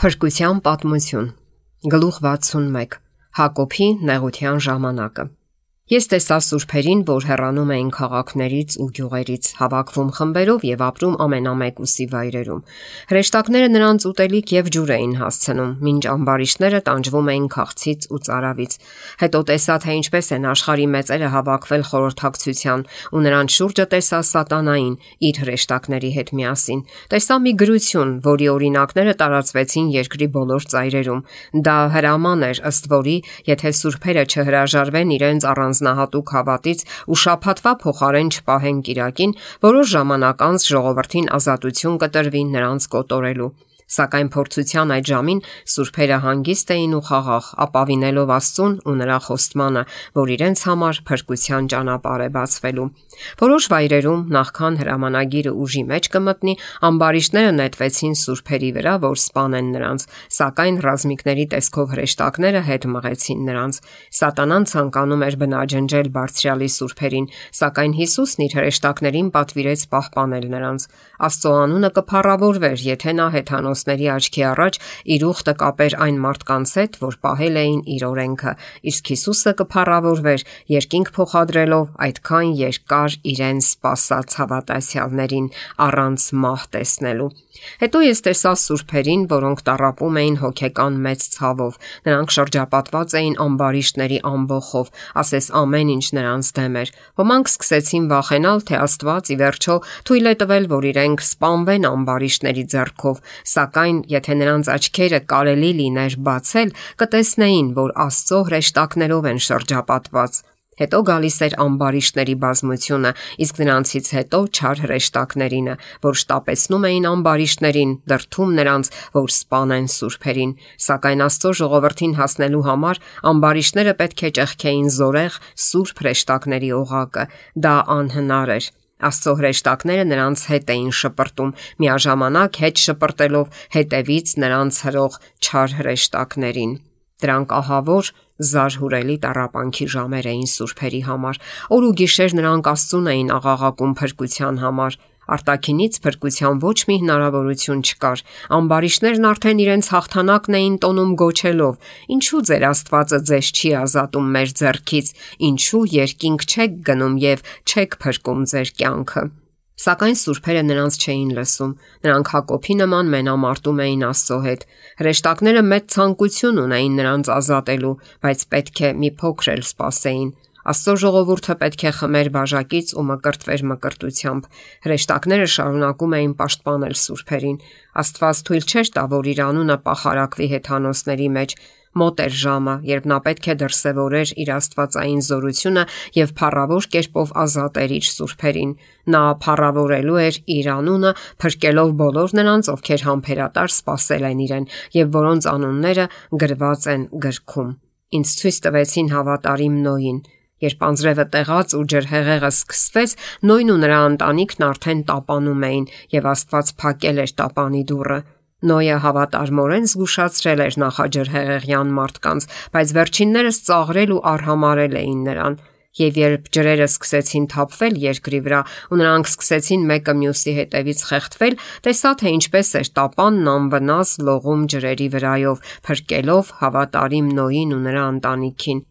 Փրկության պատմություն։ Գլուխ 61։ Հակոբի նեղության ժամանակը։ Ես տեսա սուրբերին, որ հեռանում էին քաղաքներից ու գյուղերից, հավաքվում խմբերով եւ ապրում ամենամեկուսի վայրերում։ Հրեշտակները նրանց ուտելիք եւ ջուր էին հասցնում, մինչ ամբարիշտները տանջվում էին քաղցից ու ծարավից։ Հետո տեսա, թե ինչպես են աշխարհի մեծերը հավաքվել խորհրդակցության, ու նրանց շուրջը տեսա սատանային իր հրեշտակների հետ միասին։ Տեսա մի գրություն, որի օրինակները տարածվեցին երկրի բոլոր ծայրերում։ Դա հրաման էր, ըստ որի, եթե սուրբերը չհրաժարվեն իրենց առանձնահատուկ հավատից ու շաբաթվա փոխարեն չպահեն կիրակին, որոշ ժամանակ անց ժողովրդին ազատություն կտրվի նրանց կոտորելու։ Սակայն փորձության այդ ժամին սուրբերը հանգիստ էին ու խաղաղ, ապավինելով Աստծուն ու նրա խոստմանը, որ իրենց համար փրկության ճանապարհ է բացվելու։ Որոշ վայրերում, նախքան հրամանագիրը ուժի մեջ կմտնի, ամբարիշտները նետվեցին սուրբերի վրա, որ սպանեն նրանց, սակայն ռազմիկների տեսքով հրեշտակները հետ մղեցին նրանց։ Սատանան ցանկանում էր բնաջնջել բարձրյալի սուրբերին, սակայն Հիսուսն իր հրեշտակներին պատվիրեց պահպանել նրանց։ Աստծո անունը կփառավորվեր, եթե նա հեթանոսների աչքի առաջ իր ուխտը կապեր այն մարդկանց հետ, որ պահել էին իր օրենքը, իսկ Հիսուսը կփառավորվեր, երկինք փոխադրելով այդքան երկար իրեն սպասած հավատացյալներին առանց մահ տեսնելու։ Հետո ես տեսա սուրբերին, որոնք տառապում էին հոգեկան մեծ ցավով։ Նրանք շրջապատված էին ամբարիշտների ամբոխով, ասես ամեն ինչ նրանց դեմ էր։ Ոմանք սկսեցին վախենալ, թե Աստված ի վերջո թույլ է տվել, որ իրենք սպանվեն ամբարիշտների ձեռքով, սակայն եթե նրանց աչքերը կարելի լիներ բացել, կտեսնեին, որ Աստծո հրեշտակներով են շրջապատված։ Հետո գալիս էր ամբարիշտների բազմությունը, իսկ նրանցից հետո չար հրեշտակներինը, որ շտապեցնում էին ամբարիշտներին, դրդում նրանց, որ սպանեն սուրբերին։ Սակայն Աստծո ժողովրդին հասնելու համար ամբարիշտները պետք է ճեղքեին զորեղ սուրբ հրեշտակների օղակը։ Դա անհնար էր։ Աստծո հրեշտակները նրանց հետ էին շպրտում, միաժամանակ հետ շպրտելով հետևից նրանց հրող չար հրեշտակներին։ Դրանք ահավոր զարհուրելի տառապանքի ժամեր էին սուրբերի համար։ Օր ու գիշեր նրանք Աստծուն էին աղաղակում փրկության համար։ Արտաքինից փրկության ոչ մի հնարավորություն չկար։ Ամբարիշտներն արդեն իրենց հաղթանակն էին տոնում գոչելով. «Ինչու ձեր Աստվածը ձեզ չի ազատում մեր ձեռքից, ինչու երկինք չեք գնում եւ չեք փրկում ձեր կյանքը»։ Սակայն սուրբերը նրանց չէին լսում։ Նրանք Հակոբի նման մենամարտում էին Աստծո հետ։ Հրեշտակները մեծ ցանկություն ունեին նրանց ազատելու, բայց պետք է մի փոքր էլ սպասեին։ Աստծո ժողովուրդը պետք է խմեր բաժակից ու մկրտվեր մկրտությամբ։ Հրեշտակները շարունակում էին պաշտպանել սուրբերին։ Աստված թույլ չէր տա, որ իր անունը պախարակվի հեթանոսների մեջ։ Մոտ էր ժամը, երբ նա պետք է դրսևորեր իր աստվածային զորությունը եւ փառավոր կերպով ազատեր իր սուրբերին։ Նա փառավորելու էր իր անունը, փրկելով բոլոր նրանց, ովքեր համբերատար սпасել են իրեն եւ որոնց անունները գրված են գրքում։ Ինձ ցույց տվեցին հավատարիմ Նոյին։ Երբ անձրևը տեղաց ու ջրհեղեղը սկսվեց, Նոյն ու նրա ընտանիքն արդեն տապանում էին եւ Աստված փակել էր տապանի դուռը։ Նոյը հավատարմորեն զգուշացրել էր նախաջրհեղեղյան մարդկանց, բայց վերջիններս ծաղրել ու արհամարել էին նրան։ Եվ երբ ջրերը սկսեցին թափվել երկրի վրա ու նրանք սկսեցին մեկը մյուսի հետևից խեղդվել, տեսա, թե ինչպես էր տապանն անվնաս լողում ջրերի վրայով, փրկելով հավատարիմ Նոյին ու նրա ընտանիքին։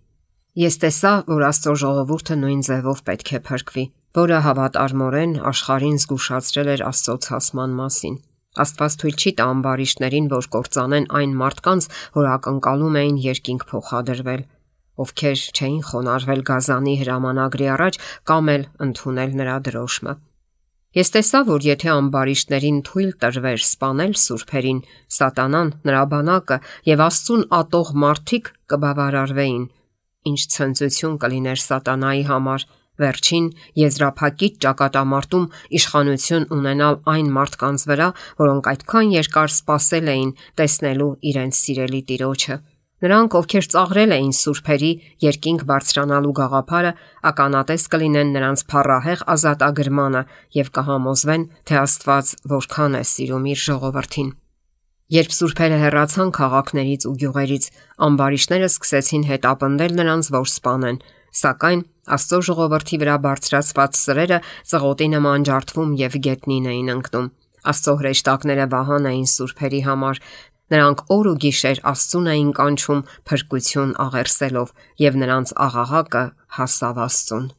Ես տեսա, որ Աստծո ժողովուրդը նույն ձևով պետք է փրկվի, որը հավատարմորեն աշխարհին զգուշացրել էր Աստծո ցասման մասին։ Աստված թույլ չի տա ամբարիշտներին, որ կործանեն այն մարդկանց, որ ակնկալում էին երկինք փոխադրվել, ովքեր չէին խոնարհվել գազանի հրամանագրի առաջ կամ էլ ընդունել նրա դրոշմը։ Ես տեսա, որ եթե ամբարիշտներին թույլ տրվեր սպանել սուրբերին, սատանան, նրա բանակը եւ Աստծուն ատող մարդիկ կբավարարվեին։ Ինչ ցնծություն կլիներ սատանայի համար վերջին եզրափակիչ ճակատամարտում իշխանություն ունենալ այն մարդկանց վրա, որոնք այդքան երկար սпасել էին տեսնելու իրենց սիրելի Տիրոջը։ Նրանք, ովքեր ծաղրել էին սուրբերի երկինք բարձրանալու գաղափարը, ականատես կլինեն նրանց փառահեղ ազատագրմանը եւ կհամոզվեն, թե Աստված որքան է սիրում իր ժողովրդին։ Երբ սուրբերը հեռացան քաղաքներից ու գյուղերից, ամբարիշտները սկսեցին հետապնդել նրանց, որ սպանեն, սակայն Աստծո ժողովրդի վրա բարձրացված սրերը ծղոտի նման ջարդվում եւ գետնին էին ընկնում։ Աստծո հրեշտակները վահան էին սուրբերի համար։ Նրանք օր ու գիշեր Աստծուն էին կանչում փրկություն աղերսելով, եւ նրանց աղաղակը հասավ Աստծուն։